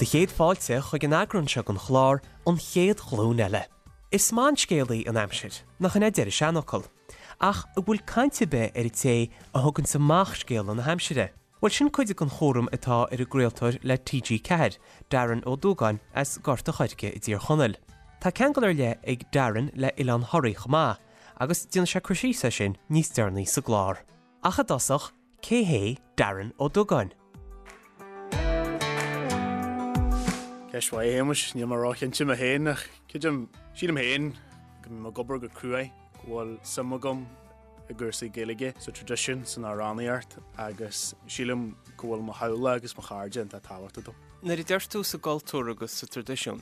Do chéad fáilte chuig an eagrán seo den chlár An Chéad Ghlúin Eile. Is maith an scéalaí an aimsir, nach in é a deir an seanfhocal? Ach an bhfuil caint ar bith ar an té a thuganns amach scéala na haimsire? Bhuel sin cuid den chúram atá ar an gcraoltóir le TG4, Darren Ó Dúgáin as Gort a' Choirce i dTír Chonaill. Tá ceangal ar leith ag Darren le Oileán Thoraí chomh maith, agus déanfaidh sé cur síos air sin níos deireanaí sa gclár. Ach i dtosach, cé hé Darren Ó Dúgáin? Ceist mhaith, a Shéamais. Níl mé róchinnte mé féin ach creidim, sílim féin go mbím ag obair go cruaidh, go bhfuil suim agam i gcúrsaí Gaeilge, sa traidisiún, san amhránaíocht agus sílim go bhfuil mo theaghlach agus mo chairde iontach tábhachtach dom. Nuair a deir tú sa gcultúr agus sa traidisiún,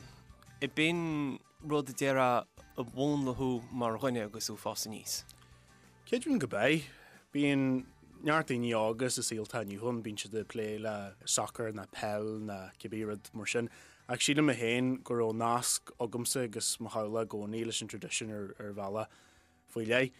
ab in rud a déarfá a mhúnlaigh thú mar dhuine agus tú ag fás aníos? Creidim go b'ea. Bíonn neart daoine óga sa saol atá inniu ann, bíonn siad ag plé le sacar ná peil ná cibé rud mar sin ach sílim mé féin go raibh nasc agamsa agus mo theaghlach i gcónaí leis an traidisiún ar bhealach. faoi leith.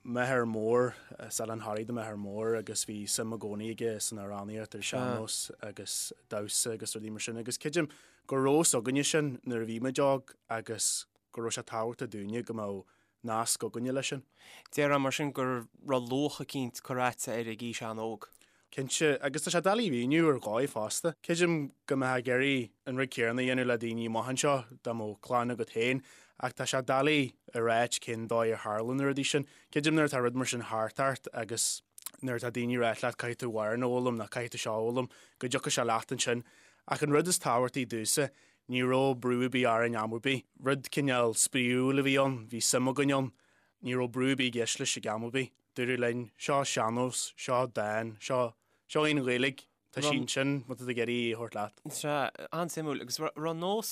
M'athair mór, as Oileán Thoraí do m'athair mór agus bhí suim i gcónaí aige san amhránaíocht ar sean-nós agus damhsa agus rudaí mar sin agus creidim go raibh fhios againne sin nuair a bhí muid óg agus go raibh sé tábhachtach dúinne go mbeadh nasc againne leis sin. Déarfá mar sin go raibh luach eicínt curtha agatsa air ag aois an-óg. Cinnte, agus tá sé doiligh a mhíniú ar dhóigh fosta. Creidim go mbeifeá ag iarraidh an rud céanna a dhéanamh le daoine amach anseo dá mbeadh clann agat féin, ach tá sé doiligh a ráit cén dóigh ar tharla na rudaí sin. Creidim nuair atá rud mar sin thart ort agus nuair atá daoine ag ráit leat caithfidh tú amhrán a fhoghlaim nó caithfidh tú seo a fhoghlaim, go dtiocfaidh sé leat ansin. Ach an rud is tábhachtaí domhsa, ní raibh brú ar bith orainn am ar bith. Rud cineál spraíúil a bhí ann, bhí suim againn ann. Ní raibh brú ar bith i gceist leis ag am ar bith. Dúradh linn, seo sean-nós, seo dán, seo, seo í an Ghaeilge, tá sí ansin má tá tú ag iarraidh í a thabhairt leat. Sea, an-suimiúil. Agus raibh nós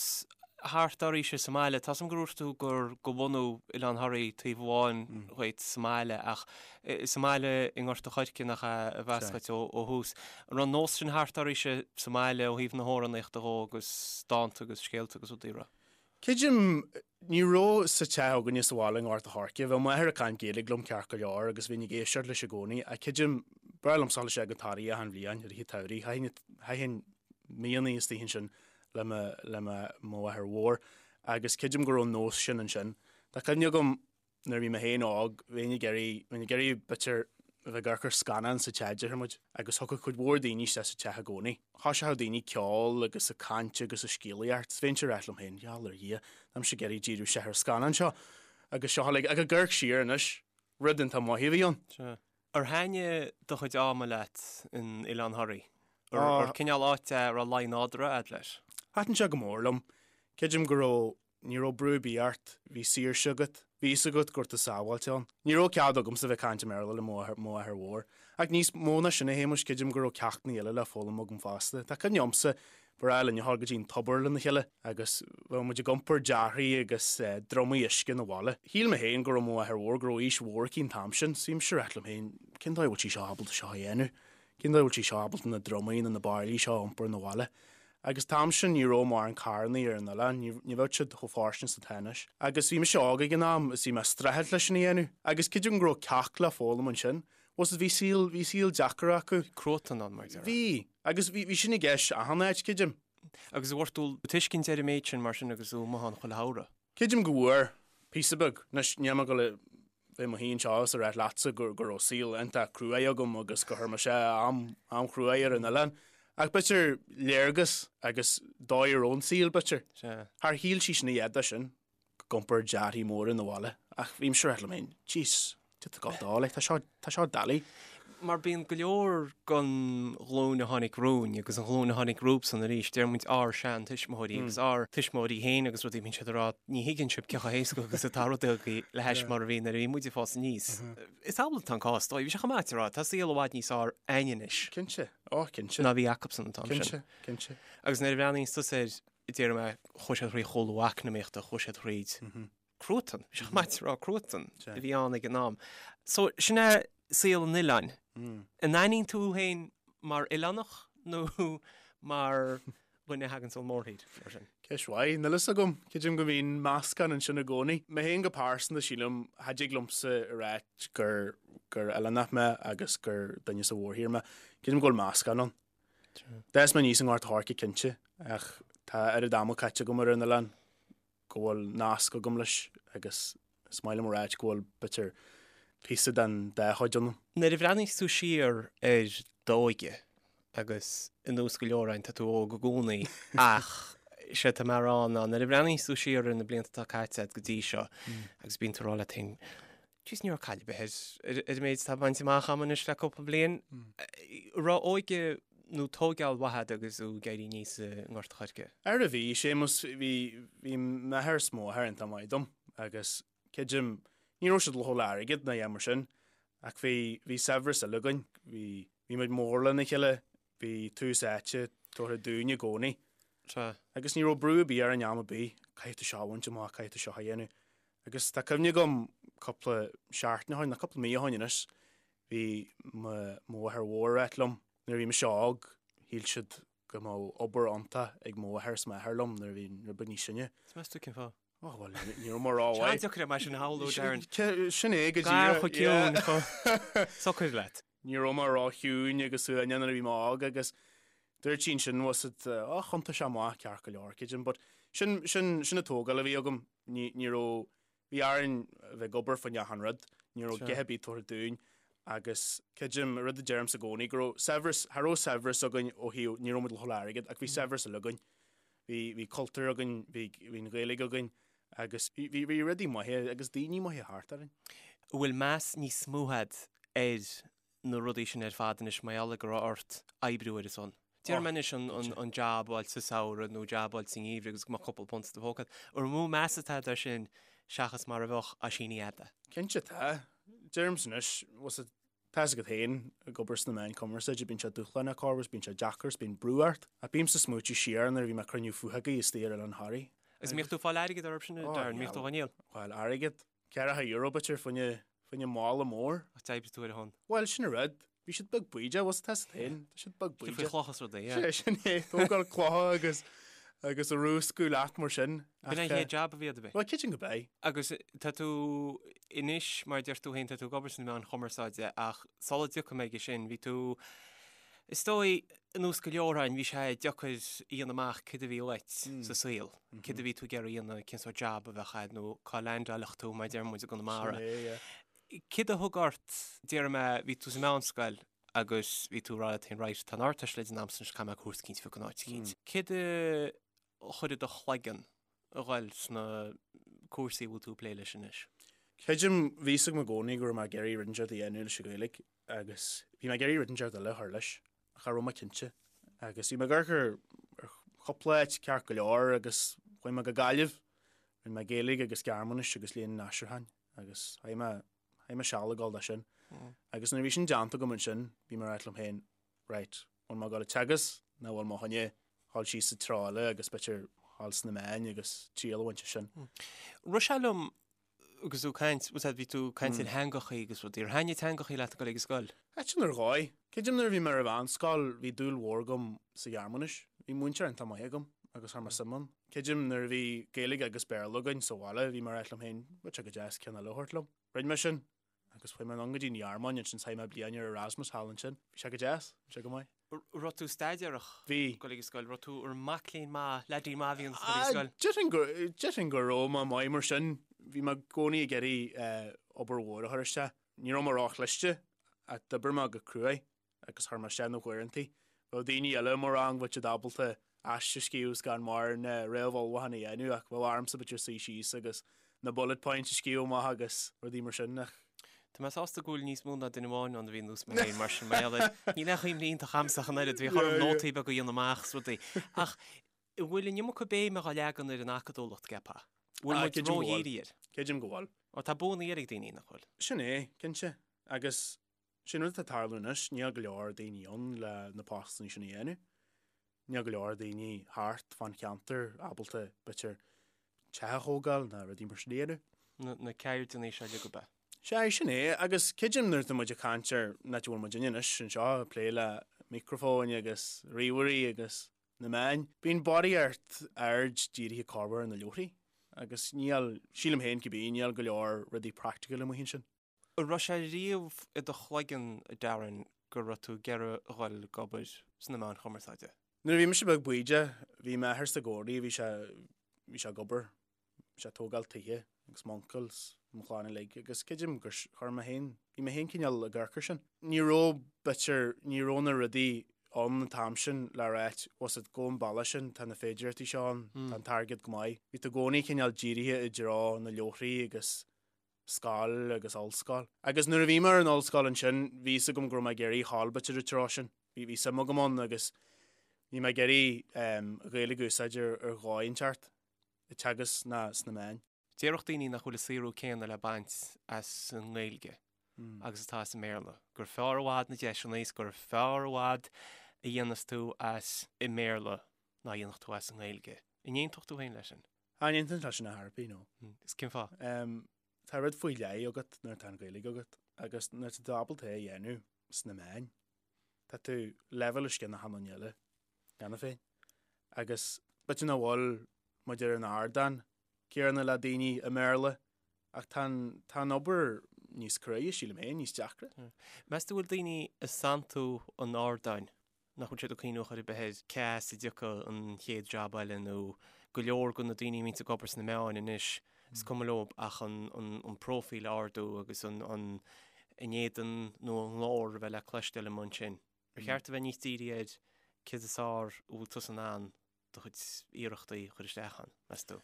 thart oraibhse sa mbaile, tá 's agam gur dhúirt tú gur de bhunadh Oileán Thoraí taobh amháin dhuit sa mbaile ach sa mbaile i nGort a' Choirce nach ea a b'as dhuit ó thús. An raibh an nós sin thart oraibhse sa mbaile ó thaobh na hamhránaíochta dhó agus dánta agus scéalta agus rudaí, raibh? Creidim, ní raibh sa teach againne sa bhaile i nGort a' Choirce. Bheadh m'athair ag caint Gaeilge liom ceart go leor agus bhínn ag éisteacht leis i gcónaí ach creidim, b'fhearr liomsa dul isteach go Toraigh achan bhliain i rith an tsamhraidh. Chaithfinn, chaithfinn míonna istigh ansin le mo, le mo, mo mháthair mhór agus creidim go raibh an nós sin ansin. Tá cuimhne agam Nuair a bhí mé féin óg, bheinn ag iarraidh, bheinn ag iarraidh b'fhéidir a bheith ag amharc ar scannán sa teach, déarfaidh muid, agus thiocfadh cuid mhór daoine isteach sa teach i gcónaí. Thoiseochadh daoine ceol agus ag caint agus ag scéalaíocht. 's bheinnse ag ráit liom féin, gheall ar Dhia, tá mise ag iarraidh díriú isteach ar an scannán seo. Agus seo uilig, ach ag amharc siar anois, rud iontach maith a bhí ann. Sea. Ar thaitnigh do chuid ama leat in Oileán Thoraí? Ar cineál áit é a raibh luí nádúrtha a'd leis? Thaitin sé go mór liom. Creidim go raibh Ní raibh brú ar bith ort, bhí saoirse agat, bhí fhios agat go raibh tú sábháilte ann. Ní raibh cead agamsa bheith ag caint i mBéarla le mo mháthair mhór. Ach níos mó ná sin a Shéamais, creidim go raibh ceachtanna eile le foghlaim agam fosta. Tá cuimhne agamsa, ba bhreá linn a dhul go dtí an tobar lena chéile agus bheadh muid ag iompar dearthaí agus drumaí uisce 'na bhaile. Shíl mé féin go raibh mo mháthair mhór, go raibh aois mhór aici an t-am sin, so bhí mise ag ráit liom féin, cén dóigh a bhfuil sí seo ábalta seo a dhéanamh? Cén dóigh a bhfuil sí seo ábalta na drumaí nó na bairillí seo a iompar 'na bhaile? Agus an t-am sin ní raibh mórán carrannaí ar an oileán, ní bheadh siad chomh fairsing is atá anois. Agus bhí mise óg ag an am is bhí mé ag streachailt leis sin a dhéanamh. Agus creidim go raibh ceacht le foghlaim ansin. Bhuel bhí saol, bhí saol deacair acu. Cruatan ann, mar a déarfá. Bhí. Agus bhí, bhí sin i gceist achan áit, creidim. Agus an bhfuair tú tuiscint ar an méid sin mar sin agus tú amuigh ann chuile shamhradh? Creidim go bhfuair, píosa beag. Anois, níl mé ag dul a bheith i mo shuí anseo is a ráit leatsa go go raibh saol iontach cruaidh agam agus gur chuir mise am, am chruaidh ar an oileán. Ach b'fhéidir léargas agus dóigh a raibh an saol, b'fhéidir. Sea. Char shíl sí sin a dhath de sin, ag iompar dearthaí móra 'na bhaile. Ach bhí mise ag ráit liom féin, jeez, Tá gá dó, like, tá seo, tá seo doiligh. Mar bíonn go leor den ghlúin a tháinig romhainn agus an ghlúin a tháinig rompu-san arís, deir muid ár sean-tuismitheoirí agus ár tuismitheoirí féin agus rudaí, bíonn siad ag rá ní thuigeann sibh cé chomh héasca agus atá rudaí le hais mar a bhí nuair a bhí muid ag fás aníos. Is amhlaidh atá an cás, dóigh, bhí sé chomh maith a rá, tá saol i bhfad níos fearr a'ainn anois. Cinnte, ó cinnte. Ná bhí acusan an t-am sin. Cinnte, cinnte. Agus nuair a bhreathnaíonns tusa air, déarfaidh mé, chuaigh siad thríd chúlú eacnamaíochta, chuaigh siad thríd. cruatan, bhí sé chomh maith a rá cruatan a bhí ann ag an am. So, sin é saol an oileáin. An aithníonn tú féin mar oileánach nó mar dhuine a thagann ón mórthír, mar sin? Ceist mhaith, níl fhios agam. Creidim go mbíonn meascán ansin i gcónaí. Mé féin go pearsanta, sílim, cha dtig liomsa a ráit gur gur oileánach mé agus gur duine sa mhórthír mé. Creidim go bhfuil meascán ann. D'fhás mé aníos i nGort a' Choirce cinnte, ach. Tá oiread ama caite agam ar an oileán go bhfuil nasc agam leis agus is maith liom a ráit go bhfuil b'fhéidir píosa den dá chuid ionam. Nuair a bhreathnaíos tú siar ar d'óige agus ar nós go leor againn tá tú óg i gcónaí ach sé atá mé a rá ná nuair a bhreathnaíos tú siar ar na blianta atá caite agat go dtí seo agus bíonn tú ag rá leat féin Jeez ní raibh caill ar bith ar ar an méid atá bainte amach agam anois le cúpla bliain. An raibh óige nó tóigeáil mhaith agat agus tú ag éirí aníos i nGort a' Choirce? Ara bhí, Séamus, bhí, bhí m'athair is mo mháthair iontach maith dom agus creidim, ní raibh siad lofa le airgead ná a dhath mar sin ach bhí, bhí saibhreas eile againn, bhí, bhí muid mór lena chéile, bhí tús áite tabhartha dúinn i gcónaí. Sea. Agus ní raibh brú ar bith orainn am ar bith, caithfidh tú seo a bhaint amach, caithfidh tú seo a dhéanamh. Agus tá cuimhne agam cúpla seachtain ó shin, nó cúpla mí ó shin anois, bhí mo mháthair mhór ag ráit liom, nuair a bhí mise óg, shíl siad go mbeadh obair iontach ag mo mháthair is m'athair liom nuair a bhí rud beag níos sine. Is meas tú cén fáth? Ó, bhuel, ní raibh mé ró-mhaith. Deacair é mar sin a shamhlú, Darren. Sin é go díreach. Gar chomh ciúin, chomh socair leat. Ní raibh mé ró-chiúin agus uaigneach nuair a bhí mé óg agus dúirt sí ansin, was it, ó, thiontaigh sé amach ceart go leor, creidim, but sin, sin, sin an tógáil a bhí agam. Ní, ní raibh, bhí orainn a bheith ag obair fá choinne achan rud, ní raibh a dhath ar bith tabhartha dúinn agus creidim, rud a deirimse i gcónaí, go raibh saibhreas, cha raibh saibhreas againn ó thaobh, ní raibh muid lofa le airgead ach bhí saibhreas eile againn. Bhí, bhí cultúr againn, bhí, bhí an Ghaeilge againn agus bhí, bhí, bhí rudaí maithe agus daoine maithe thart orainn. An bhfuil meas níos mó agat ar na rudaí sin ar fad anois mar gheall ar go raibh ort oibriú ar a son? Déarfaidh mé anois an, an jab a fháil sa samhradh nó jab a fháil sa ngeimhreadh agus go mbeadh cúpla punt i do phóca agat. An mó meas atá agat air sin seachas mar a bheadh á síní fhada? Cinnte tá. Deirimse anois, was it, tá fhios agat féin, ag obair sna meáin cumarsáide, bíonn sé dúshlánach corruair, bíonn sé deacair, is bíonn brú ort. Ach bímse ag smaoitiú siar nuair a bhí mé ag cruinniú fathagaí istigh ar Oileán Thoraí. Agus an mbíodh tú ag fáil airgead orthu sin, Darren? An mbíodh tú á ndíol? Bhuel, airgead. Ceathracha euro b'fhéidir fá choinne, fá choinne mála mór. Ach d'oibrigh tú ar a shon. Bhuel, sin an rud. Bhí siad beag bídeach, bhfuil tá fhios agat féin. Tá siad beag bídeach. Faoi chlocha is rudaí, yeah. Sé, sin é, tógáil clocha agus, agus a rúscadh leat mar sin. B'in an chéad jab a bhí agat, ab é? Bhuel, creidim gurb é. Agus tá tú anois, mar a deir tú féin, tá tú ag obair sna meáin chumarsáide ach sula dtiocfaidh mé aige sin, bhí tú, is dóigh, ar nós go leor againn, bhí sé deacair a dhéanamh amach céard a bhí uait sa saol, céard a bhí tú ag iarraidh a dhéanamh, cén sórt jab a bheadh agat nó cá leaindeáilfeadh tú, mar a deir muid i gConamara. Sin é, yeah. Céard a thug ort, déarfaidh mé, bhí tú sa mheánscoil agus bhí tú ag rá leat féin, right, tá an Ardteist le déanamh a'msa anois, caithfidh mé cúrsa eicínt a phiocadh in áit eicínt. Céard a chuir i do chloigeann a ghoil sna cúrsaí a bhfuil tú ag plé leis anois? Creidim, bhí fhios agam i gcónaí go raibh mé ag iarraidh rud inteacht a dhéanamh leis an Ghaeilge agus bhí mé ag iarraidh rud inteacht eile a chur leis. ach cha raibh mé cinnte. Agus bhí mé ag amharc ar chúpla áit ceart go leor agus chuaigh mé go Gaillimh. Rinne mé Gaeilge agus Gearmáinis agus Léann an Aistriúcháin agus chaith mé, chaith mé seal ag dul dó sin. Agus nuair a bhí sin déanta agam ansin, bhí mé ag ráit liom féin, right, bhfuil mé ag dul ag teagasc nó bhfuil mé chun a dhul síos sa treo eile agus b'fhéidir dhul sna meáin agus triail a bhaint as sin. Rith sé liom Agus tú ag caint, bhfuil bhí tú ag caint ar theangachaí agus rudaí. Ar thaitnigh teangachaí leat ag dul ag an scoil? Thaitin ar dhóigh. Creidim nuair a bhí mé ar an mheánscoil bhí dúil mhór agam sa Ghearmáinis. Bhí múinteoir iontach maith agam agus chuir mé suim ann. Creidim nuair a bhí Gaeilge agus Béarla againn sa bhaile bhí mé ag ráit liom féin, bheadh sé go deas ceann eile a thabhairt liom. Rinne mé sin agus chuaigh mé anonn go dtí an Ghearmáin ansin chaith mé bliain ar Erasmus thall ansin. Bhí sé go deas, bhí sé go maith. Raibh tú staidéarach? Bhí. Ag dul ag an scoil. Raibh tú ar mac léinn maith, leaidín maith a bhí ionat ag dul ag an scoil? Déarfainn go, déarfainn go raibh mé maith mar sin. Bhí mé i gcónaí ag iarraidh obair mhór a chur isteach. Ní raibh mé róchliste ach d'oibir mé go cruaidh agus chuir mé isteach na huaireantaí. Bheadh daoine eile i mo rang, bheadh siad ábalta aiste a scríobh gan mórán réamhullmhúchán a dhéanamh ach bheadh ormsa b'fhéidir suí síos agus na bullet points a scríobh amach agus rudaí mar sin ach. Tá mé sásta go bhfuil níos mó ná duine amháin ann a bhí ar nós mé féin mar sin mar gheall air níl aon chuimhne iontach a'msa ach an oiread, bhíodh orm nótaí beaga a dhéanamh amach is rudaí. Ach an bhfuil an iomarca béime á leagan ar an acadúlacht, ceapfá? Bhfuil muid ródhírithe air? Creidim go bhfuil. Ó tá buanna eile ag daoine, nach bhfuil? Sin é, cinnte. Agus Sin rud atá ag tarlú anois, níl go leor daoine ann le na postanna sin a dhéanamh. Níl go leor daoine thart fán cheantar ábalta, b'fhéidir, teach a thógáil ná rudaí mar sin a dhéanamh. Na ceirdeanna seo uilig ab ea? Sea, sin é. Agus creidim nuair atá muid ag caint ar an áit a bhfuil muidinne anois anseo ag plé le micreafóin agus ríomhairí agus na meáin, bíonn barraíocht aird dírithe corruair ar na leabharthaí agus níl, sílim féin cibé, níl go leor rudaí practical amuigh ansin. An raibh sé riamh i do chloigeann, a Darren, go raibh tú ag iarraidh a dhul ag obair sna meáin chumarsáide? Nuair a bhí mise beag bídeach, bhí m'athair sa gcónaí, bhí sé, bhí sé ag obair, bhí sé ag tógáil tithe agus m'uncail 's mo chlann uilig agus creidim gur chuir mé féin, bhí mé féin cineál ag amharc air sin. Ní raibh, b'fhéidir, ní raibh na rudaí ann an t-am sin le ráit, was it, go an bealach sin, tá na féidireachtaí seo ann, tá an t-airgead go maith. Bhí tú i gcónaí cineál dírithe i dtreo na leabharthaí agus scoil agus ollscoil. Agus nuair a bhí mé ar an ollscoil ansin, bhí fhios agam go raibh mé ag iarraidh a ghabháil b'fhéidir an treo sin. Bhí bhí suim agam ann agus bhí mé ag iarraidh an Ghaeilge a úsáid ar ar dhóigh inteacht, ag teagasc ná sna meáin. Déarfadh daoine nach bhfuil an saothrú céanna le baint as an nGaeilge agus atá as an mBéarla, gur fearr i bhfad na deiseanna is gur fearr i bhfad a dhéanas tú as i mBéarla ná a dhéanfadh tú as an nGaeilge. An aontódh tú féin leis sin? Ah, ní aontaím leis sin ar chor ar bith, no. Is cén fáth? Tá rud faoi leith agat nuair atá an Ghaeilge agat agus nuair atá tú ábalta é a dhéanamh sna meáin, tá tú leibhéal os cionn achan duine eile cheana féin. Agus b'fhéidir nach bhfuil muid ar an ardán céanna le daoine i mBéarla ach tá an, tá an obair níos cruaidhe, sílim féin, níos deacra. Meas tú bhfuil daoine ag santú an ardáin nach bhfuil siad ag cuimhniú chor ar bith ar cá as a dtiocfaidh an chéad jab eile nó go leor de na daoine a bhíonns ag obair sna meáin anois is cuma leo ach an, an, an próifíl a ardú agus an, an, a n-éadan nó a nglór a bheith le cloisteáil amuigh ansin. Ar cheart a bheith níos dírithe ar céard is fearr a bhfuil tusa in ann do chuid iarrachtaí a chur isteach ann, meas tú?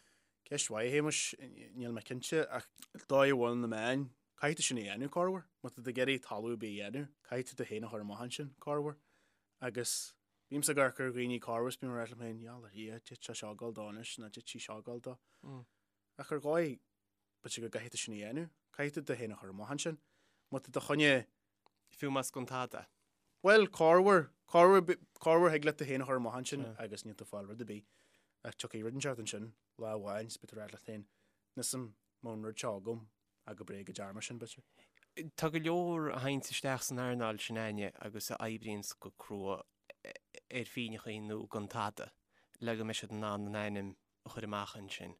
Ceist mhaith, a Shéamais, níl mé cinnte ach dóigh a bhfuil na meáin, caithfidh tú sin a dhéanamh, corruair. Má tá tú ag iarraidh talamh ar bith a dhéanamh, caithfidh tú tú féin a chur amach ansin, corruair. Agus bímse ag amharc ar dhaoine corruair is bím ag rá liom féin, yeah, yeah, d'fhéadfadh sé seo a ghabháil dó anois nó d'fhéadfadh sí seo a ghabháil dó. Ach ar dhóigh, b'fhéidir go gcaithfidh tú sin a dhéanamh. Caithfidh tú tú féin a chur amach ansin. Má tá do choinne Fiú más gan tada. Bhuel, corruair, corruair, corruair thig leat tú féin a chur amach ansin agus níl tú ag fáil rud ar bith. Ach tiocfaidh rud inteacht ansin lá amháin is beidh tú ag rá leat féin, níl 'fhios a'm an mbeadh an rud seo agam ach go bréag go dtearn mé sin, b'fhéidir. Tá go leor a théanns isteach san earnáil sin againne agus a oibríonns go crua ar phínneachaí nó gan tada le go mbeidh siad in ann a n-ainm a chur amach ansin.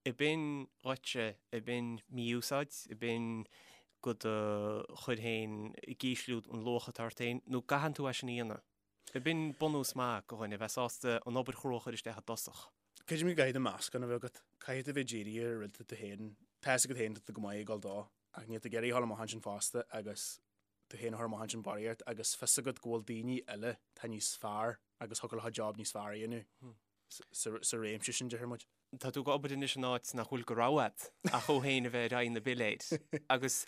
Ab in dhuitse, ab in mí-úsáid, ab in go do chur féin ag ísliú an luach atá ort féin, nó an gcaitheann tú é sin a dhéanamh? Ab in bunús maith go dhuine a bheith sásta an obair chrua a chur isteach i dtosach? Creidim go gcaithfidh tú meascán a bheith agat. Caithfidh tú bheith dírithe ar rud atá tú féin, tá fhios agat féin tá tú go maith ag dul dó, ach níl tú ag iarraidh a dhul amach ansin fosta agus tú féin a chur amach ansin barraíocht agus fios agat go bhfuil daoine eile atá níos fearr agus thiocfadh leo job níos fearr a dhéanamh sa réimse sin, déarfaidh muid. Tá tú ag obair anois in áit nach bhfuil de rogha agat ach thú féin a bheith ar aghaidh na bpiléir agus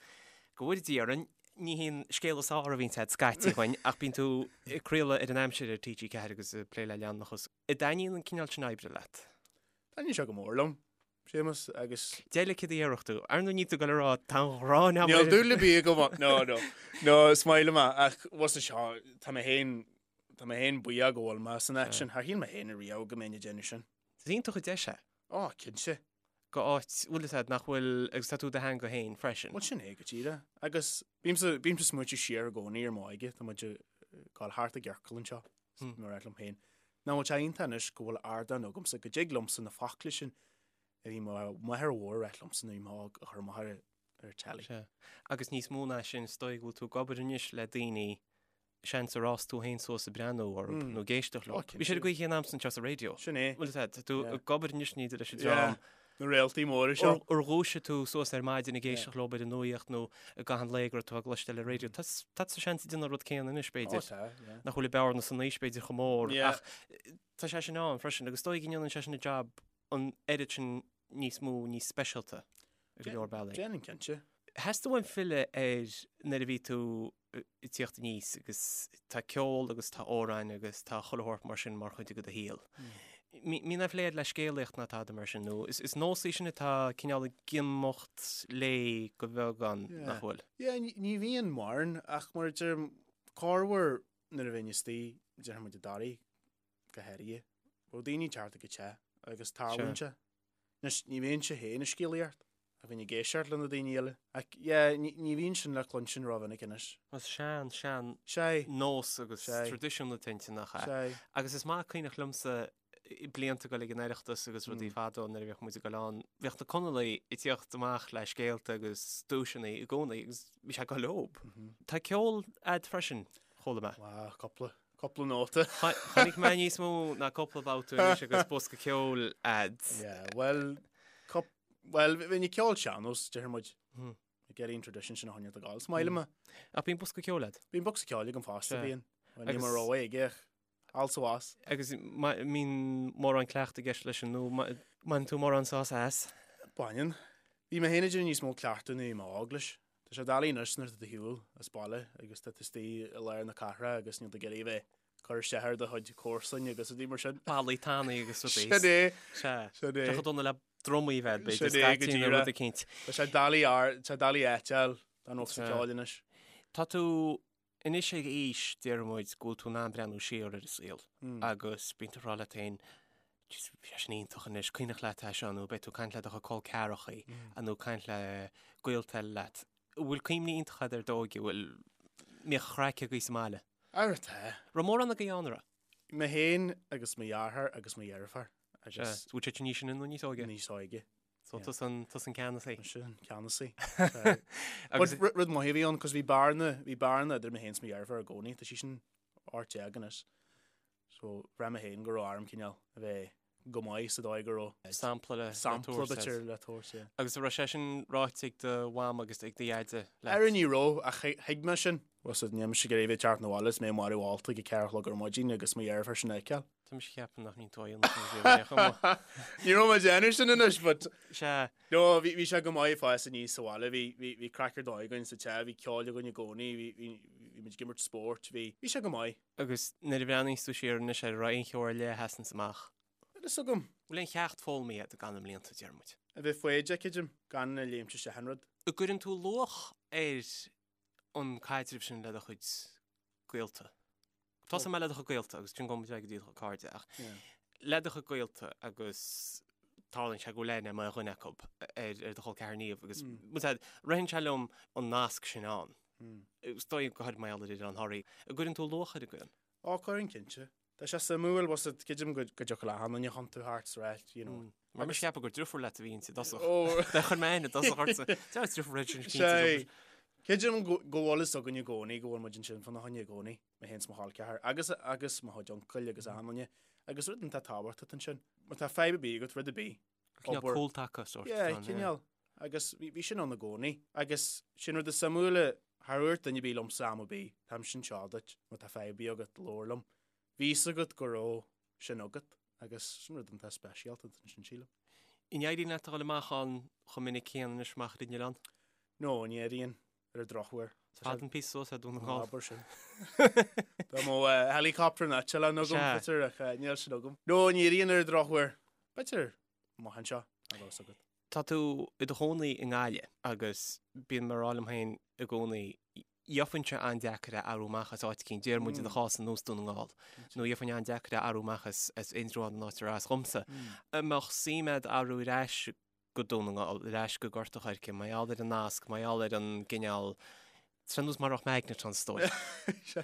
go bhfóire Dia orainn, ní hé an scéal is fearr a bhíonns agat scaití againn ach bíonn tú ag craoladh ar an aimsir ar TG4 agus ag plé le leanúnachas. An dtaitníonn an cineál sin oibre leat? Taitníonn sé go mór liom, Séamus, agus. Deir céard a déarfadh tú. Ar ndóigh níl tú ag dul a rá tá an ghráin agam Níl dúil ar bith agam ann. No, no. No, is maith liom é ach bhfuil fhios seo, tá mé féin, tá mé féin buíoch go bhfuil mé san áit sin. Char shíl mé féin ariamh go mbeinn ag déanamh sin. Is iontach an deis é. Ó, cinnte. Go áit, bhfuil fhios a'd, nach bhfuil, agus tá tú i do theanga féin freisin. Bhuel, sin é go díreach. Agus bímse, bímse ag smaointiú siar i gcónaí ar m'óige, tá muid ag gabháil thart i gciorcal anseo, mar a rá liom féin. Nach bhfuil sé iontach anois go bhfuil ardán agamsa, go dtig liomsa na focla sin a bhí mo mháthair mhór ag ráit liomsa nuair a bhí mé óg a chur amach ar ar telly. Sea. Agus níos mó ná sin, is dóigh go bhfuil tú ag obair anois le daoine, seans ar fhás tú féin suas ag breathnú orthu nó ag éisteacht leo. Bhí siad ag guí chéanna agamsa anseo sa raidió. Sin é. Bhfuil fhios a'd, tá tú ag obair anois ní leis an dream. Na réaltaí móra seo. Ar dhúisigh tú suas ar maidin ag éisteacht leo ar an nuaíocht nó i gcaitheamh an lae go raibh tú á gcloisteáil ar an raidió. Tá tá seans ag déanamh an rud céanna anois, b'fhéidir. Ó tá, yeah. Nach bhfuil an bearna san aois b'fhéidir chomh mór ach tá sé sin ann freisin agus is dóigh go ndéanann sé sin an jab an oiread sin níos mó, níos speisialta ar go leor bealaí. Déanann, cinnte. Theastaigh uaim filleadh ar nuair a bhí tú ag tíocht aníos agus tá ceol agus tá amhráin agus tá chuile shórt mar sin mar chuid de do shaol. Mbíonn aon phlé agat le scéalaíocht ná tada mar sin nó is nós í sin atá cineál ag imeacht léi go beagán, nach bhfuil? Yeah, ní bhíonn mórán ach mar a deirim, corruair nuair a bheinn istigh, déarfaidh muid i dToraigh go háirithe, bheadh daoine ag teacht ag an teach agus tarlaíonn sé. Anois, ní bheinnse féin ag scéalaíocht, ach bheinn ag éisteacht le na daoine eile. Ach, yeah, ní, ní bhíonn sin le cluinstin rómhinic anois. Is sean, sean Sea. nós agus Sea. traidisiún atá inti, nach ea? Sea. Agus is maith cuimhneach liomsa blianta ag dul ag an Oireachtas agus rudaí fadó nuair a bhíodh muid ag dul ann, bhíodh na Conallaigh ag tíocht amach le scéalta agus duaiseanna i gcónaí agus bhí sé ag dul leob. Tá ceol a'd freisin, chuala mé. Wow, cúpla. Cúpla nóta. Chonaic mé níos mó ná cúpla babhta anois agus bosca ceoil a'd. Yeah, well, bhuel, bhí ní ceol sean-nós, deir muid. Hmm. Ag iarraidh an tradition sin a choinneáil ag gabháil. Is maith liom é. Ach bíonn bosca ceoil a'd? Bíonn bosca ceoil agam fosta, bíonn. Bhuel, ní mar rogha aige ach also as. Agus mbíonn mórán cleachtaidh i gceist leis sin nó mbaineann tú mórán sásamh as? Baineann. Bhí mé féin ag déanamh níos mó cleachtaidh nuair a bhí mé óg leis. Tá sé doiligh anois nuair atá tú ar shiúl as baile agus tá tú istigh i lár na cathrach agus níl tú ag iarraidh a bheith ag cur isteach ar do chuid comharsan agus rudaí mar sin. Ballaí tanaí agus rudaí. Sin é. Sea. Sin é. Tá chomh dona le drumaí a bheith, b'fhéidir, Sin é, go scaití nó rud díreach. eicínt. Tá sé doiligh ar, tá sé doiligh áit a fháil don bhosca ceoil anois. Tá tú Anois ag aois, déarfaidh muid, go bhfuil tú in ann breathnú siar ar an saol agus bíonn tú ag rá leat féin, jeez, bhí sé sin iontach anois, cuimhneach leat é seo nó beidh tú ag caint le do chuid col ceathrachaí nó ag caint le gaolta eile leat. An bhfuil cuimhní iontacha agat ar d'óige, bhfuil, mbíodh craic agaibh sa mbaile? Ara tá. Raibh mórán agaibh ann, an raibh? Mé féin agus mo dheartháir agus mo dheirfiúr agus. Sea, bhfuil siad níos sine nó níos óige? Níos óige. So tusa an, tusa an ceannasaí. Mise an ceannasaí. Agus rud, rud maith a bhí ann, cos bhí bearna, bhí bearna idir mé féin is mo dheirfiúr i gcónaí, tá sí sin 18 anois. So bhraith mé féin go raibh orm cineál a bheith go maith sa dóigh go raibh Sampla le, le sampla tabhairt b'fhéidir le tabhairt, yeah. Agus an raibh sé sin ráite ag do mham agus ag do dheaide leat? Ara ní raibh, ach thuig mé sin. Bhfuil a fhios agat, níl mise ag iarraidh a bheith ag teacht 'na bhaile is mé marbh ólta ag a 4 a chlog ar maidin agus mo dheirfiúr sin a fheiceáil. Tá mise ag ceapadh nach mbíonn tú á dhéanamh sin riamh ar aon chuma. Ní raibh mé ag déanamh sin anois, but Sea. No, bhí, bhí sé go maith ag fás aníos sa bhaile, bhí, bhí, bhí craic ar dóigh againn sa teach, bhí ceol againn i gcónaí, bhí, bhí, bhí muid ag imirt spóirt, bhí, bhí sé go maith. Agus nuair a bhreathnaíos tú siar anois air, an raibh aon cheo ar leith a sheasanns amach? Níl fhios agam. Bhfuil aon cheacht foghlamtha agat i gcaitheamh na mblianta, deir muid? A bheith foighdeach, creidim, gan a léimt isteach in rud. An gcuireann tú luach ar an caidreamh sin le do chuid gaolta. Tosóidh mé le do chuid gaolta agus ansin gabhfaidh muid ar aghaidh go dtí do chuid cairde ach le do chuid gaolta agus tarlaíonn sé go bhfuil aithne mar dhuine acu ar ar do chol ceathar Niamh agus ritheann sé liom an nasc sin ann. Is dóigh go háirid mar gheall ar Oileán Thoraí. An gcuireann tú luach air, an gcuireann? Ó, cuireann cinnte. Tá sé suimiúil, bhfuil a fhios agat, creidim go dtiocfadh le achan duine chun tú thart sa ráit, you know. Mar mise ag ceapadh gur driofúr leat a bhí inti i dtosach. Dá chuir mé aithne i dtosach ortsa. Deir driofúr leat sin cinnte. Sé, creidim go bhfuil fhios againn i gcónaí go bhfuil muid ansin fána choinne i gcónaí, mé féin is mo chol ceathar, agus agus mo chuid uncail agus achan duine. Agus rud iontach tábhachtach ansin, má tá fadhb ar bith agat, rud ar bith, Cineál cúltaca sórt. Yeah, cineál. Agus bhí sin ann i gcónaí. Agus sin rud is suimiúla, char dhúirt duine ar bith liomsa am ar bith, táimse anseo duit, má tá fadhb ar bith agat, labhair liom. Bhí fhios agat go raibh sin agat agus sin rud iontach speisialta ansin, sílim. An éiríonn leat a dhul amach ann chomh minic céanna anois amach ar an oileán? No, ní éiríonn, ar an drochuair. Is fada an píosa suas é Dún na nGall. Abair sin. Dá mbeadh helicopter nó eitleán agam, b'fhéidir, ach níl sin agam. No, ní éiríonn ar an drochuair. B'fhéidir amach anseo, a bheas agat. Tá tú i do chónaí i nGaillimh agus bíonn mé ag rá liom féin i gcónaí, gheobhainnse an-deacair é athrú amach as áit eicínt, déarfaidh muid i do chás ar nós Dún na nGall, nó gheobhainn an-deacair é athrú amach as Indreabhán an áit ar as dhomsa. An mbeadh suim agat athrú ar ais go Dún na nGall, ar ais go Gort a' Choirce, mar gheall ar an nasc, mar gheall ar an gcineál, tá nós mar a bheadh magnet ann is dóigh.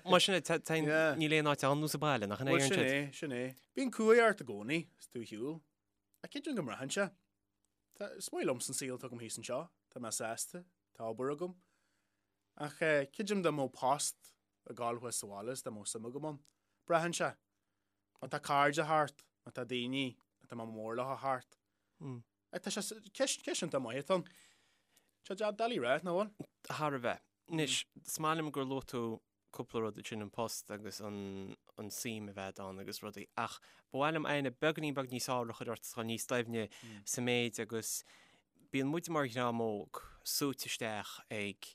Mar sin é, níl aon áit ar nós an baile, nach in é an Sin é, sin é. Bíonn cumhaidh ort i gcónaí, is tú ar shiúl. Ach creidim go mbraitheann sé. Tá, is maith liomsa an saol atá agam thíos anseo, tá mé sásta, tá obair agam. Ach creidim dá mbeadh post ag gabháil thuas sa bhaile is dá mbeadh suim agam ann. Braitheann sé. Má tá cairde thart, má tá daoine atá mé mór leo thart. Ach tá sé, ceist, ceist iontach maith atá ann. Tá sé doiligh a rá, nach bhfuil? Thar a bheith. Anois, is maith liom gur luaigh tú cúpla rud ansin, an post agus an an suim a bheith ann agus rudaí, ach ba mhaith liom aithne beagáinín beag níos fearr a chur ort, dul níos doimhne sa méid agus bíonn muid mar dhream óg súite isteach ag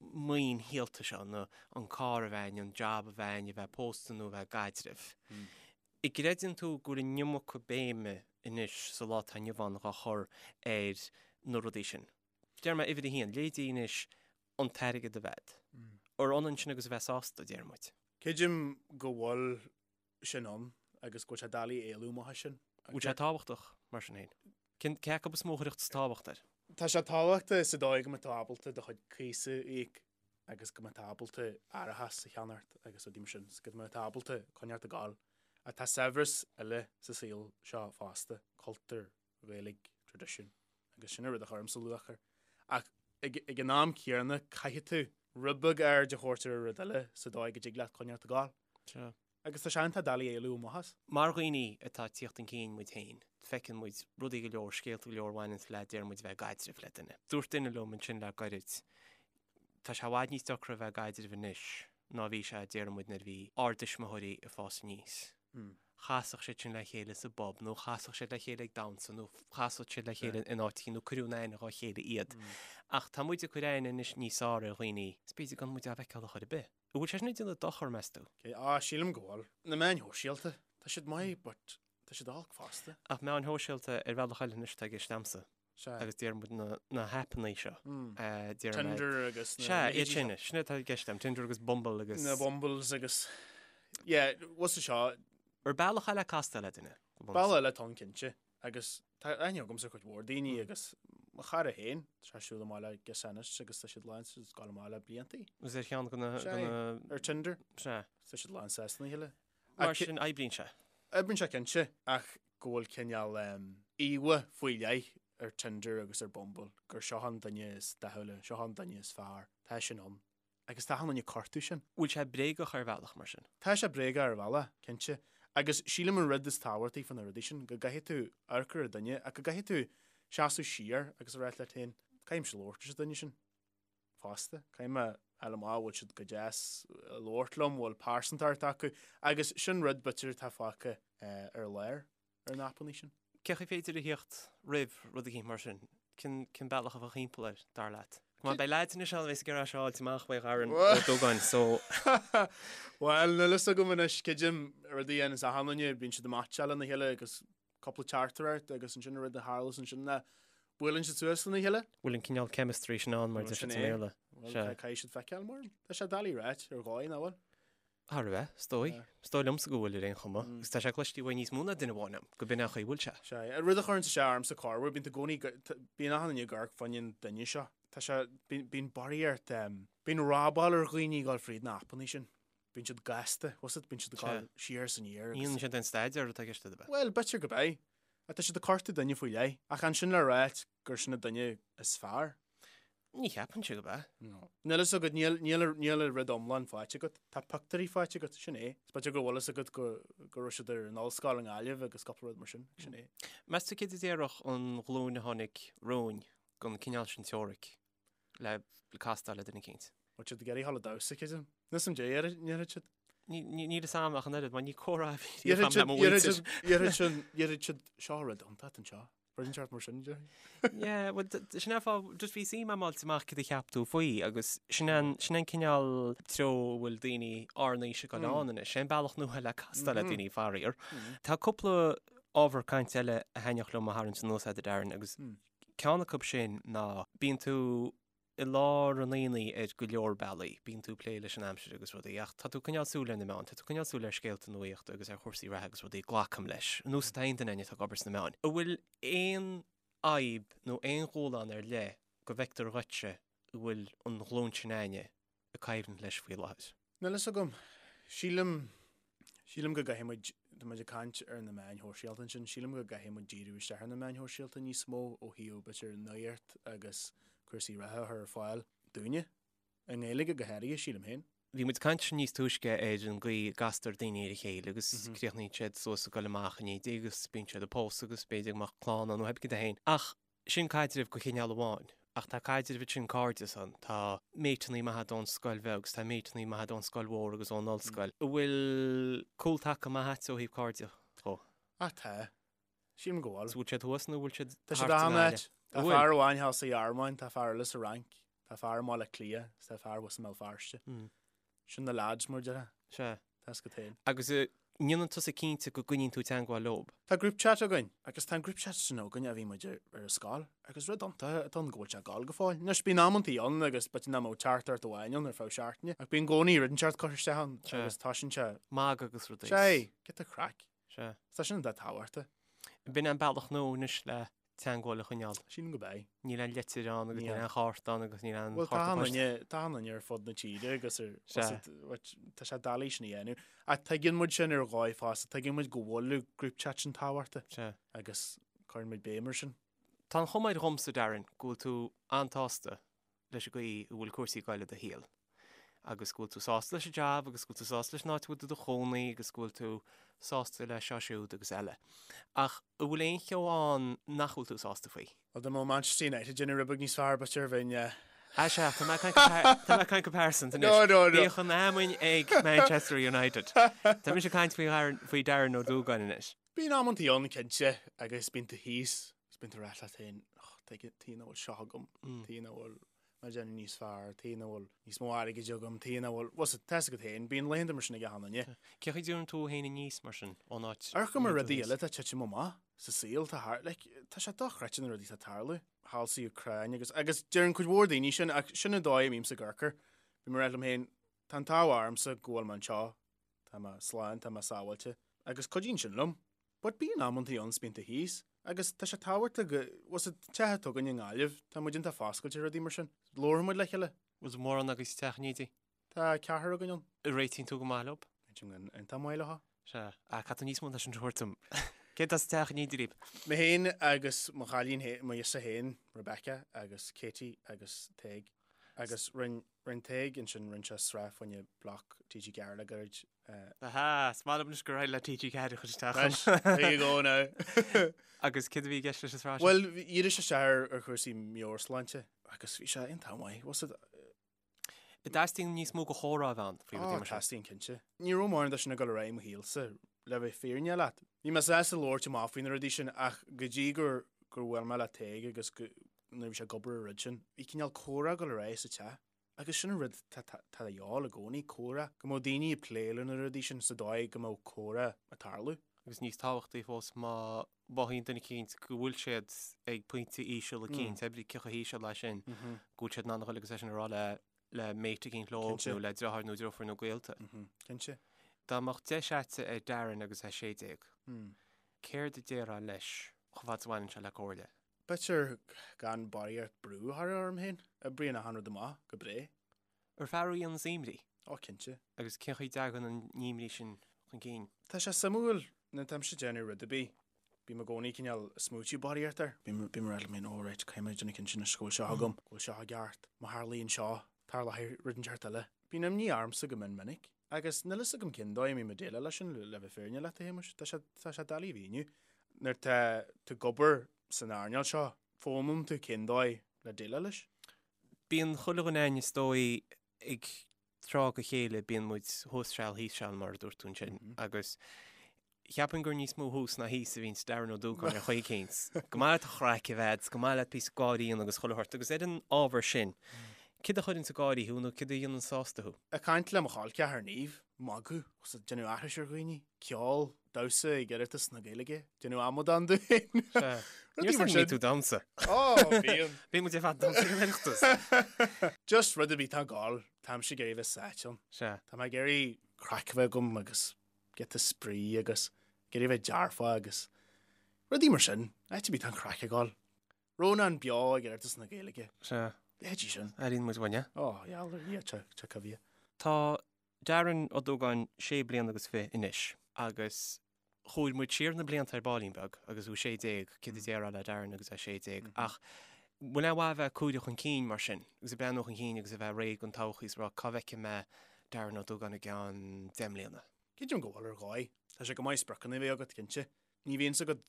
maoin shaolta seo, nó an carr a bheith againn, an jab a bheith againn, a bheith pósta nó a bheith i gcaidreamh. An gcreideann tú go bhfuil an iomarca béime anois sa lá atá inniu ann dhá chur ar na rudaí sin? Deir mé uimhir a haon, leithéidí anois an t-airgead a bheith agat. Ar ionann sin agus a bheith sásta, deir muid. Creidim go bhfuil sin ann agus go bhfuil sé doiligh éalú amach as sin. Bhfuil sé tábhachtach, mar sin féin? Cén, cé acu is mó a chuirfeadh tábhacht air? Tá sé tábhachtach sa dóigh go mbeidh tú ábalta do chuid cíosa a íoc agus go mbeidh tú ábalta árachas a cheannacht agus rudaí mar sin, go mbeidh tú ábalta coinneáil ag gabháil. Ach tá saibhreas eile sa saol seo fosta, cultúr, Gaeilge, traidisiún, agus sin an rud a chuirimse luach air. Ach ag, ag an am céanna caithfidh tú rud beag aird a thabhairt ar an rud eile sa dóigh go dtig leat coinneáil ag gabháil. Sea. Agus tá sé iontach doiligh éalú amach as. Mar dhaoine atá ag tíocht chun cinn muid féin, feiceann muid rudaí go leor, scéalta go leor a bhaineanns le, deir muid, bheith i gcaidreamh le duine. Dúirt duine liom ansin le gairid, tá sé i bhfad níos deacra a bheith i gcaidreamh anois ná a bhí sé, deir muid, nuair a bhí ár dtuismitheoirí ag fás aníos. Chasfadh siad sin le chéile sa bpub nó chasfadh siad le chéile ag damhsa nó chasfadh siad le chéile in áit éicint nó cuireadh in aithne dhá chéile iad. Ach tá muid ag cur aithne anois níos fearr ar dhaoine is b'fhéidir gan muid á bhfeiceáil a chor ar bith. An bhfuil sé sin ag déanamh dochar, meas tú? Á, sílim go bhfuil. Na meáin shóisialta, tá siad maith but tá siad olc fosta. Ach meáin shóisialta ar bhealach eile anois atá i gceist a'msa. Sea. Agus deir muid na, na haipeanna seo. Deir mé. Tinder agus na Sea, iad sin, sin atá i gceist a'm, Tinder agus Bumble agus. Na Bumbles agus, yeah, what's the seo? Ar bealach eile castáil le duine, go bunúsach. Bealach eile atá ann cinnte. Agus tá aithne agamsa ar chuid mhór daoine agus mo chara féin, tá sé ag siúl amach le girseach anois agus tá siad lán ag gabháil amach le bliantaí. Agus ar cheann de na, de na. Ar Tinder. Sea. Tá siad lán sásta lena chéile. Mar sin, oibríonn sé. Oibríonn sé cinnte, ach go bhfuil cineál íomha faoi leith ar Tinder agus ar Bumble, gur seo an duine is dathúla, seo an duine is fearr. Tá sin ann. Agus tá achan duine ag cuartú sin. Bhfuil sé bréagach ar bhealach, mar sin? Tá sé bréagach ar bhealach, cinnte. Agus sílim an rud is tábhachtaí faoi na rudaí sin, go gcaithfidh tú amharc ar an duine ach go gcaithfidh tú seasamh siar agus a rá leat féin, caithfimse labhairt leis an duine sin fosta, caithfidh mé a fháil amach bhfuil siad go deas ag labhairt liom, bhfuil pearsantacht acu agus sin rud b'fhéidir atá fágtha ar lár. ar na haipeanna sin. Cén chaoi féidir a theacht roimh rud eicínt mar sin? Cén cén bealach a bheadh thimpeall air, dar leat? Come on, beidh leaids anois ann a bheas ag iarraidh seo a fháilt amach uaidh Dharren Ó Dubháin, so. Bhuel, níl fhios agam anois, creidim rud a dhéananns achan duine, bíonn siad ag meaitseáil lena chéile agus cúpla teachtaireacht agus ansin an rud a tharlas ansin ná buaileann siad suas lena chéile. Bhfuil an cineál chemistry sin ann mar a deir siad sa mBéarla? Bhuel, caithfidh siad feiceáil mar. Tá sé doiligh a ráit ar dhóigh, nach bhfuil? Thar a bheith, is dóigh. Is dóigh liomsa go bhfuil ar aon chuma. Agus tá sé cloiste uaidh níos mó ná duine amháin agam, go b'in é an chaoi a bhfuil sé. Sea. Rud a chuireann isteach ormsa corruair, bíonn tú i gcónaí, bíonn achan duine ag amharc fá choinne an duine seo. Tá sé, bíonn, bíonn barraíocht, bíonn robáil ar dhaoine ag dul fríd na haipeanna sin. Bíonn siad gasta, bhfuil 's agat, bíonn siad ag dul siar is aniar agus. Ní dhéanann siad aon staidéar atá i gceist agat, ab ea? Bhuel, b'fhéidir go b'ea. Ach tá siad ag cuartú duine faoi leith. Ach an sin le ráit gur sin an duine is fearr? Ní cheapfainnse gurb ea. No. Níl fhios agat, níl, níl, níl an rud iomlán faighte agat. Tá pictiúirí faighte agat, sin é. Is b'fhéidir go bhfuil fhios agat go, go raibh siad ar an ollscoil i nGaillimh agus cúpla rud mar sin, sin é. Meas tú céard a déarfadh an ghlúin a tháinig romhainn den cineál sin teoiric le castáil le duine eicínt? Bhfuil siad ag iarraidh a dhul ag damhsa, creidim. Níl 'fhios a'm dé, ndéarfaidh siad. Níl fhios a'm ach an oiread, mar ní comhrá a bhí riamh a'm le mo mhuintir. Déarfaidh siad, déarfaidh siad, seo rud iontach anseo. Rud inteacht mar sin, déarfainn. Yeah, well, sin é an fáth, just bhí suim a'm fháilt amach céard a cheap tú faoi agus sin an, sin an cineál treo a bhfuil daoine ár n-aois ag dul ann anois. Sé an bealach nua le castáil le daoine, faraor. Tá cúpla ábhar cainte eile a thaitneodh liom a tharraingt anuas agat, a Darren, agus ceann acu sin ná bíonn tú i lár an aonaigh ar go leor bealaí. Bíonn tú ag plé leis an aimsir agus rudaí, ach tá tú ag coinneáil súil ar na meáin, tá tú ag coinneáil súil ar scéalta nuaíochta agus ar chúrsaí reatha agus rudaí, glacaim leis, ar nós atá aon duine atá ag obair sna meáin. An bhfuil aon fhadhb nó aon dhúshlán ar leith go bhfeictear dhuitse a bhfuil an ghlúin sin againne ag coimhlint leis faoi láthair? Níl fhios agam. Sílim, sílim go gcaithfidh muid, tá muid ag caint ar na meáin shóisialta ansin, sílim go gcaithfidh muid díriú isteach ar na meáin shóisialta níos mó ó thaobh b'fhéidir nuacht agus cúrsaí reatha a chur ar fáil dúinne, i nGaeilge go háirithe, sílim féin. Bhí muid ag caint níos túisce ar an gcaoi a gcastar daoine ar a chéile agus críochnaíonn siad suas ag dul amach in éindí agus bíonn siad ag pósadh agus b'fhéidir go mbeadh clann ann nó pé cad é féin. Ach Sin caidreamh de chineál amháin, ach tá caidreamh ansin cairdeas ann, tá méiteannaí maithe ón scoil bheag agus tá méiteannaí maithe ón scoil mhór agus ón ollscoil. An bhfuil cúltaca maith a't ó thaobh cairde dhó? Ah tá. Sílim go bhfuil. Is bhfuil siad thuas nó bhfuil siad Tá siad thart san áit. áit. Tá fear amháin thall sa Ghearmáin, tá fear eile sa Fhrainc, tá fear i mBaile Átha Cliath is tá fear thuas i mBéal Feirste. Sin na lads mar a déarfá. Sea. Tá 'fhios agat féin. Agus an ndéanann tusa cinnte go gcoinníonn tú teagmháil leob? Tá group chat againn agus tá an group chat sin againn ó bhí muid ar ar an scoil agus rud iontach atá ann go bhfuil sé ag gabháil go fóill. Anois bíonn amantaí ann agus b'fhéidir nach mbeadh teachtaireacht amháin ann ar feadh seachtaine ach bíonn i gcónaí rud inteacht curtha isteach ann agus tá sin sé. Magadh agus rudaí. Sea, giota craic. Sea. Tá sin iontach tábhachtach. B'in an bealach nua anois le teagmháil a choinneáil. Sílim gurb é. Níl aon litir ann agus níl aon chárta ann agus níl aon Bhuel tá an duine, tá an duine ar fud na tíre agus ar, tá sé doiligh sin a dhéanamh. Ach tuigeann muid sin ar dhóigh fosta, tuigeann muid go bhfuil an group chat sin tábhachtach agus cuireann muid béim ar sin. Tá an chuma air dhomsa, Darren, go bhfuil tú an-tsásta leis an gcaoi a bhfuil cúrsaí ag goil i do shaol. agus go bhfuil tú sásta leis an jab agus go bhfuil tú sásta leis an áit a bhfuil tú i do chónaí agus go bhfuil tú sásta le seo siúd agus eile. Ach an bhfuil aon cheo ann nach bhfuil tú sásta faoi? Bhuel, dá mbeadh Manchester United ag déanamh rud beag níos fearr, b'fhéidir bheinn. Ah sea, tá mé ag caint go pearsanta anois. No, no, no. Bíodh an fheamainn ag Manchester United. Tá mise ag caint faoi Darren, faoi Darren Ó Dúgáin anois. Bíonn amantaí ann, cinnte, agus bíonn tú thíos, agus bíonn tú ag rá leat féin, oh, tuige, tuige nach bhfuil seo agam, tuige nach bhfuil mé ag déanamh níos fearr, tuige nach bhfuil níos mó airgid agam, tuige nach bhfuil, bhuel, tá 'fhios agat féin, bíonn laethanta mar sin ag achan duine. Cén chaoi a dtabharann tú féin aníos mar sin, ón áit Amharcaim ar rudaí eile atá ag titim amach sa saol, tá thart, like, tá sé dochreidte na rudaí atá ag tarlú. Thall sa Úcráin agus, agus deireann cuid mhór daoine sin, ach sin an dóigh a mbímse ag amharc air. Bím ag rá liom féin, tá an t-ádh ormsa go bhfuil mé anseo, tá mé slán, tá mé sábháilte, agus cuidíonn sin liom. But bíonn amantaí ann 's bíonn tú thíos, agus tá sé tábhachtach go, bhfuil 's agat, an teach atá againn i nGaillimh, tá muid iontach foscailte ar rudaí mar sin. Labhrann muid le chéile. Bhfuil mórán agaibh sa teach in éindí? Tá ceathrar againn ann. Réitíonn tú go maith leo? Réitím go iontach maith leo. Sea. Ah, caithfidh tú níos mó ná sin a thabhairt dom. Cé atá sa teach in éindí libh? Mé féin agus mo chailín féin, mo ghirseach féin, Rebecca, agus Katie agus Tadhg. Agus rinn, rinn Tadhg ansin, rinn sé sraith fá choinne bloc TG4 le gairid. Aha, is maith liom anois gur éirigh le TG4 a chur isteach ann. There you go now. Agus céard a bhí i gceist leis an sraith sin? Bhuel, dhírigh sé isteach ar, ar chúrsaí meabhairshláinte agus bhí sé iontach maith. Bhfuil 's agat, An dteastaíonn níos mó de chomhrá a bheith ann faoi rudaí mar sin? Ó, teastaíonn cinnte. Ní raibh mórán de sin ag dul ar aghaidh i mo shaolsa, le bheith fírinneach leat. Bhí mé sásta labhairt amach faoi na rudaí sin ach go dtí gur gur bhuail mé le Tadhg agus go nuair a bhí sé ag obair ar an rud sin, bhí cineál comhrá ag dul ar aghaidh sa teach. Agus sin an rud tá tá de dhíobháil i gcónaí, comhrá. Go mbeadh daoine ag plé le na rudaí sin sa dóigh go mbeadh comhrá ag tarlú. Agus níos tábhachtaí fós má mhothaíonn duine eicínt go bhfuil siad ag pointe íseal eicínt, pé ar bith cé chomh híseal leis sin, go bhfuil siad in ann a dhul agus é sin a rá le le mate eicínt leo nó le deartháir nó deirfiúr nó gaolta. Cinnte. Dá mbeadh deis a'dsa ar Darren agus é 16, céard a déarfá leis chomh fada is a bhaineann sé le comhairle? B'fhéidir gan barraíocht brú a chur orm féin. Oibríonn achan rud amach go breá. Ar fear thú a dhéananns imní? Ó, cinnte. Agus cén chaoi a dtagann an imní sin chun cinn? Tá sé suimiúil, nuair atáimse ag déanamh rud ar bith, bím i gcónaí cineál ag smaoitiú barraíocht air. Bím ag rá liom féin, oh right, caithfidh mé déanamh cinnte anois go bhfuil seo agam, go bhfuil seo i gceart, má tharlaíonn seo, tarlóidh rud inteacht eile. Bíonn imní ormsa go mion minic, agus níl fhios agam cén dóigh a mbím ag déileáil leis sin, le bheith fírinneach leat, a Shéamuis. Tá sé, tá sé doiligh a mhíniú. Nuair atá tú ag obair san earnáil seo, foghlaimíonn tú cén dóigh le déileáil leis. Bíonn chuile dhuine againn is dóigh ag tráth go chéile bíonn muid thuas seal thíos seal mar a dúirt tú ansin agus cheapfainn gur níos mó thuas ná thíos a bhíonns Darren Ó Dúgáin ar chaoi eicínt. Go maith leat an chraic a bheith, go maith leat píosa gáirí a dhéanamh agus chuile shórt agus ar an ábhar sin, céard a chuireanns ag gáirí thú nó céard a dhéanann sásta thú? Ag caint le mo chol ceathar Niamh, magadh, agus ag déanamh aithris ar dhaoine, ceol, damhsa ag Oireachtas na Gaeilge, déanamh amadán de féin. Sea. Níor san ní tú damhsa. Ó, bíonn. Bíonn muid ar fad damhsa ag an Oireachtas. Just rud ar bith atá ag gabháil, táimse ag iarraidh bheith sáite ann. Sea. Tá mé ag iarraidh craic a bheith agam agus giota spraoi agus ag iarraidh bheith dearfach agus rudaí mar sin. Áit ar bith atá an chraic ag gabháil. Rónán Beo ag Oireachtas na Gaeilge. Sea. Leithéidí sin. Airíonn muid uainn é. Ó, gheall ar Dhia, tá coimhthíoch. Tá Darren Ó Dúgáin sé bliana agus fiche anois agus chuaigh muid siar na blianta ar baillín beag agus thú 16, céard a déarfá le Darren agus é 16 ach bhfuil aon mhaith a bheith ag cuimhneamh chun cinn mar sin agus ag breathnú chun cinn agus a bheith réidh don todhchaí is a rá cá bhfeicfidh mé Darren Ó Dúgáin i gceann 10 mbliana? Creidim go bhfuil ar dhóigh. Tá sé go maith spriocanna a bheith agat, cinnte. Ní bhíonn 's agat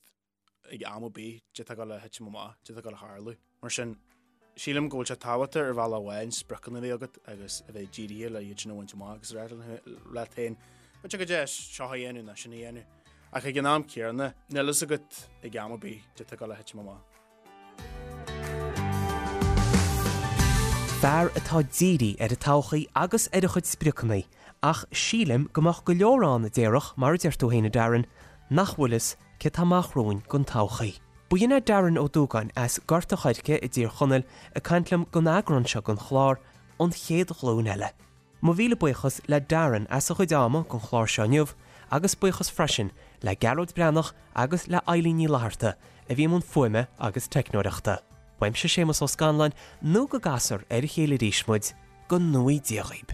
ag am ar bith caidé atá ag dul a thitim amach, caidé atá ag dul a tharlú. Mar sin, sílim go bhfuil sé tábhachtach ar bhealach amháin spriocanna a bheith agat agus a bheith dírithe le iad sin a bhaint amach agus a rá leat féin, b'fhéidir go deas seo a dhéanamh nó sin a dhéanamh. Ach ag an am céanna, níl fhios agat ag am ar bith caidé atá ag dul a thitim amach. Fear atá dírithe ar an todhchaí agus ar a chuid spriocanna, ach sílim go mbeadh go leor ann a déarfadh, mar a deir tú féin a Darren, nach bhfuil fhios céard tá amach romhainn don todhchaí. B'in é Darren Ó Dúgáin as Gort a' Choirce i dTír Chonaill ag caint liom don eagrán seo den chlár, An Chéad Ghlúin Eile. Mo mhíle buíochas le Darren as a chuid ama don chlár seo inniu agus buíochas freisin le Gearóid Breathnach agus le Eilín Ní Fhlatharta a bhí i mbun fuaime agus teicneoireachta. Uaimse Séamus Ó Scanláin nó go gcasfar ar a chéile arís muid, go ngnóthaí Dia dhaoib.